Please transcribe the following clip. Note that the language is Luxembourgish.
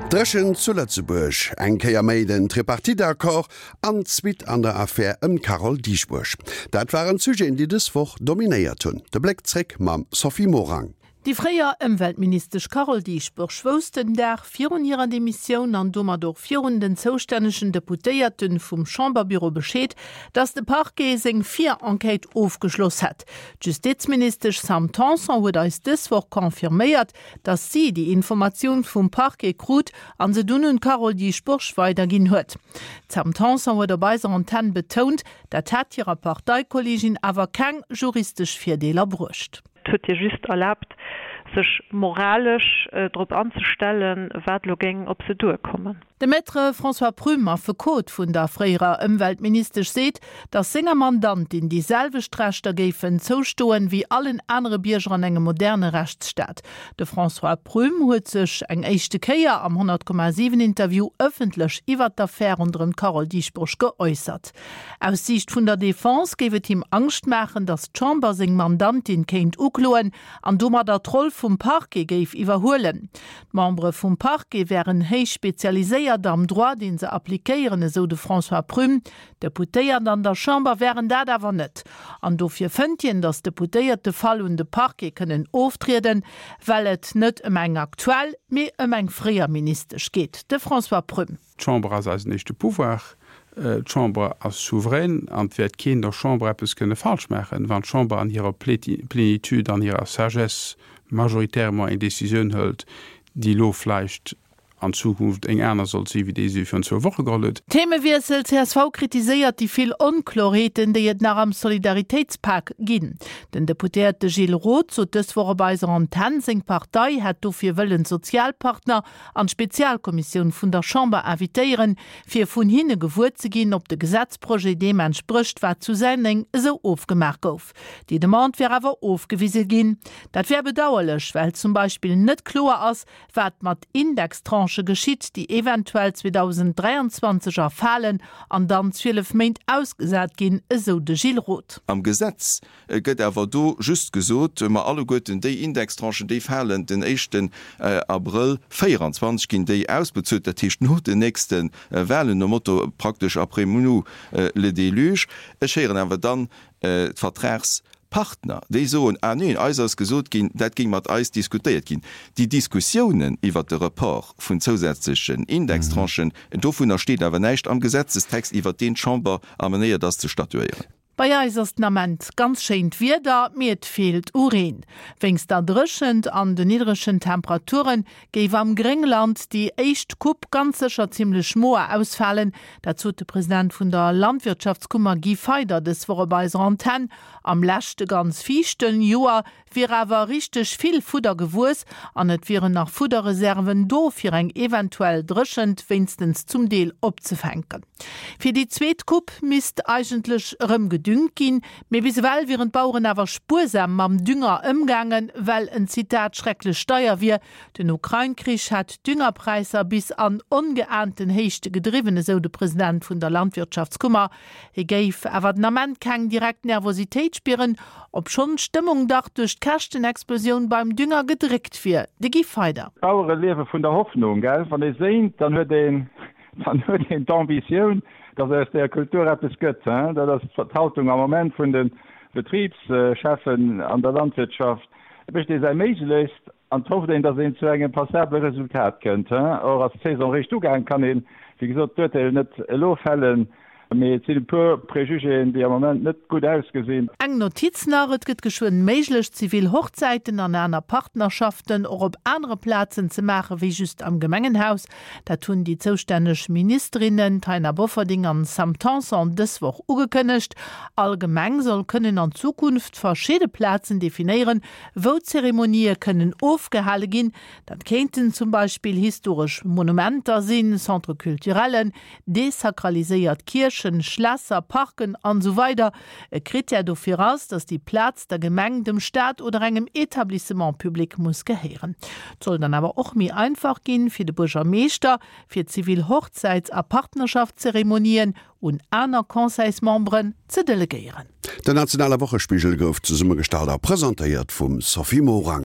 Dréchent zu Lëtzebuerg, eng Kéier méi den Tripartite-Accord an d'Suite an der Affär ëm d'Carole Dieschbourg. Dat waren d'Sujeten, déi dës Woch dominéiert hunn. De Bléck zréck mam Sophie Morang. Déi fréier Ëmweltministesch Carole Dieschbourg wousst den Dag virun hirer Demissioun an domat och virun den zoustännegen Deputéierte vum Chamberbüro Bescheed, datt de Parquet seng Vir-Enquête ofgeschloss hätt. D'Justizministesch Sam Tanson huet eis dës Woch confirméiert, datt si déi Informatioun vum Parquet krut an se dunn un d'Carole Dieschbourg weiderginn huet. D'Sam Tanson huet op eiser Antenn betount, dat hätt hirer Parteikolleegin awer keng juristesch Virdeeler bruecht. Et huet hir just erlaabt, sech moralesch drop anzestellen, wat elo géing op se duerkommen. De Maître François Prüm, Affekot vun der fréierer Ëmweltministesch, seet, datt senger Mandantin déi selwecht Rechter géifen zoustoen, wéi allen anere Bierger an engem moderne Rechtsstaat. De François Prüm huet sech eng éischte Kéier am 100,7 Interview ëffentlech iwwert d'Affär ronderëm d'Carole Dieschbourg geäussert. Aus Siicht vun der Defense géif et him Angscht maachen, datt d'Chamber seng Mandantin kéint ukloen an domadder d'Roll vum Parquet géif iwwerhuelen. D'Membere vum Parquet wären héich spezialiséiert am Droit, dee se appliquéieren, esou de François Prüm. D'Deputéiert an der Chamber wären dat awer net. An dofir fënnt hien, datt d'Deputéiert de Fall un de Parquet kënnen oftrieden, well et net ëm eng aktuell, mee ëm eng fréier Ministesch geet. De François Prüm. D'Chamber ass eisen éischte Pouvoir. D'Chamber ass souverän an et wäert keen der Chamber eppes kënne falsch maachen. Wann d'Chamber an hirer Plénitude, an hirer Sagesse majoritairement eng Décisioun hëlt, déi elo vläicht an Zukunft eng aner sollt si wéi déi se virun zwou Woche geholl huet. Themewiessel, Csv kritiséiert déi vill Onklorheeten, déi et nach am Solidaritéitspak ginn. Den Deputéierte Gilles Roth sot dës Woch op eiser Antenn, seng Partei hätt dofir wëllen d'Sozialpartner an d'Spezialkommissioun vun der Chamber invitéieren, fir vun hinne gewuer ze ginn, ob de Gesetzprojet deem entsprécht, wat zu Senneng esou ofgemaach gouf. Déi Demande wär awer ofgewise ginn. Dat wär bedauerlech, well zum Beispill net kloer ass, wat mat Indextranchë geschitt, déi eventuell 2023 erfalen an dann 12 Méint ausgesat ginn, esou de Gilles Roth. Am Gesetz Et gëtt awer do just gesot, ma alleguerten déi Indextranchen, déi falen den éischten Abrëll 24, ginn déi ausbezuelt, dat heescht no den nächste Wahlen, nom Motto praktesch après nous le déluge. Ech héieren awer dann d'Vertragspartner, déi soen, ah neen, eis ass gesot ginn, dat géing mat eis diskutéiert ginn. Déi Diskussiounen iwwert de Report vun zousätzlechen Indextranchen, dovunner steet awer näischt am Gesetzestext, iwwert deen d'Chamber amenéiert ass ze statuéieren. Bei eis ass den Ament ganz schéint Wieder, mee et feelt u Reen. Wéinst der Dréchent an de niddregen Temperature géif am Gréngland déi éischt Coupe ganz sécher zimmlech moer ausfalen. Dat sot de President vun der Landwirtschaftskummer Guy Feyder dës Woch op eiser Antenn. Am leschte ganz fiichten Joer wier awer richteg vill Fudder gewuess an et wieren nach Fudderreserven do, fir eng eventuell Dréchent wéinstens zum Deel opzefänken. Fir déi zweet Coupe misst eigentlech erëm gedüngt ginn, mee bis ewell wieren d'Baueren awer spuersam mam Dünger ëmgaangen, well en, Zitat, schrecklech deier wier. Den Ukrain-Krich hätt d'Düngerpräisser bis an ongeahnten Héichte gedriwwen, esou de President vun der Landwirtschaftskummer. Hie géif awer den Ament keng direkt Nervositéit spieren, obschonn d'Stëmmung dach duerch d'Käschtenexplosioun beim Dünger gedréckt wier. De Guy Feyder. D'Bauere liewe vun der Hoffnung, gell? Wann ee séint, dann huet een, dann huet een d'Ambitioun, datt aus där Kultur eppes gëtt, hein? Dat ass d'Haltung am Moment vun de Betribscheffen an der Landwirtschaft. Et mécht ee säi Méiglechst An et hofft een, datt een zu engem passabele Resultat kënnt. Or ass d'Saison réischt ugaangen, kann een, wéi gesot, d'Urteel net elo fällen, mee et sinn e puer Prejugéen, déi am Moment net gutt ausgesinn. Eng Notiz nach, Et gëtt geschwënn méiglech, zivil Hochzäiten an aner Partnerschaften och op anere Plazen ze maache wéi just am Gemengenhaus. Dat hunn déi zoustänneg Ministerinnen Taina Bofferding an Sam Tanson dës Woch ugekënnegt. All Gemeng soll kënnen an Zukunft verschidde Plazen definéieren, wou Zeremonië kënnen ofgehale ginn. Dat kéinten zum Beispill historesch Monumenter sinn, Centre culturellen, desakraliséiert Kierchen, Schlässer, Parken an esou weider E Krittär dofir ass, datt déi Plaz der Gemeng, dem Staat oder engem Etablissement public muss gehéieren. Et soll dann awer och méi einfach ginn, fir de Buergermeeschter, fir zivil Hochzäits a Partnerschaftszeremonien un aner Conseilsmemberen ze delegéieren. Den nationale Wochespigel gouf zesummegestallt a presentéiert vum Sophie Morang.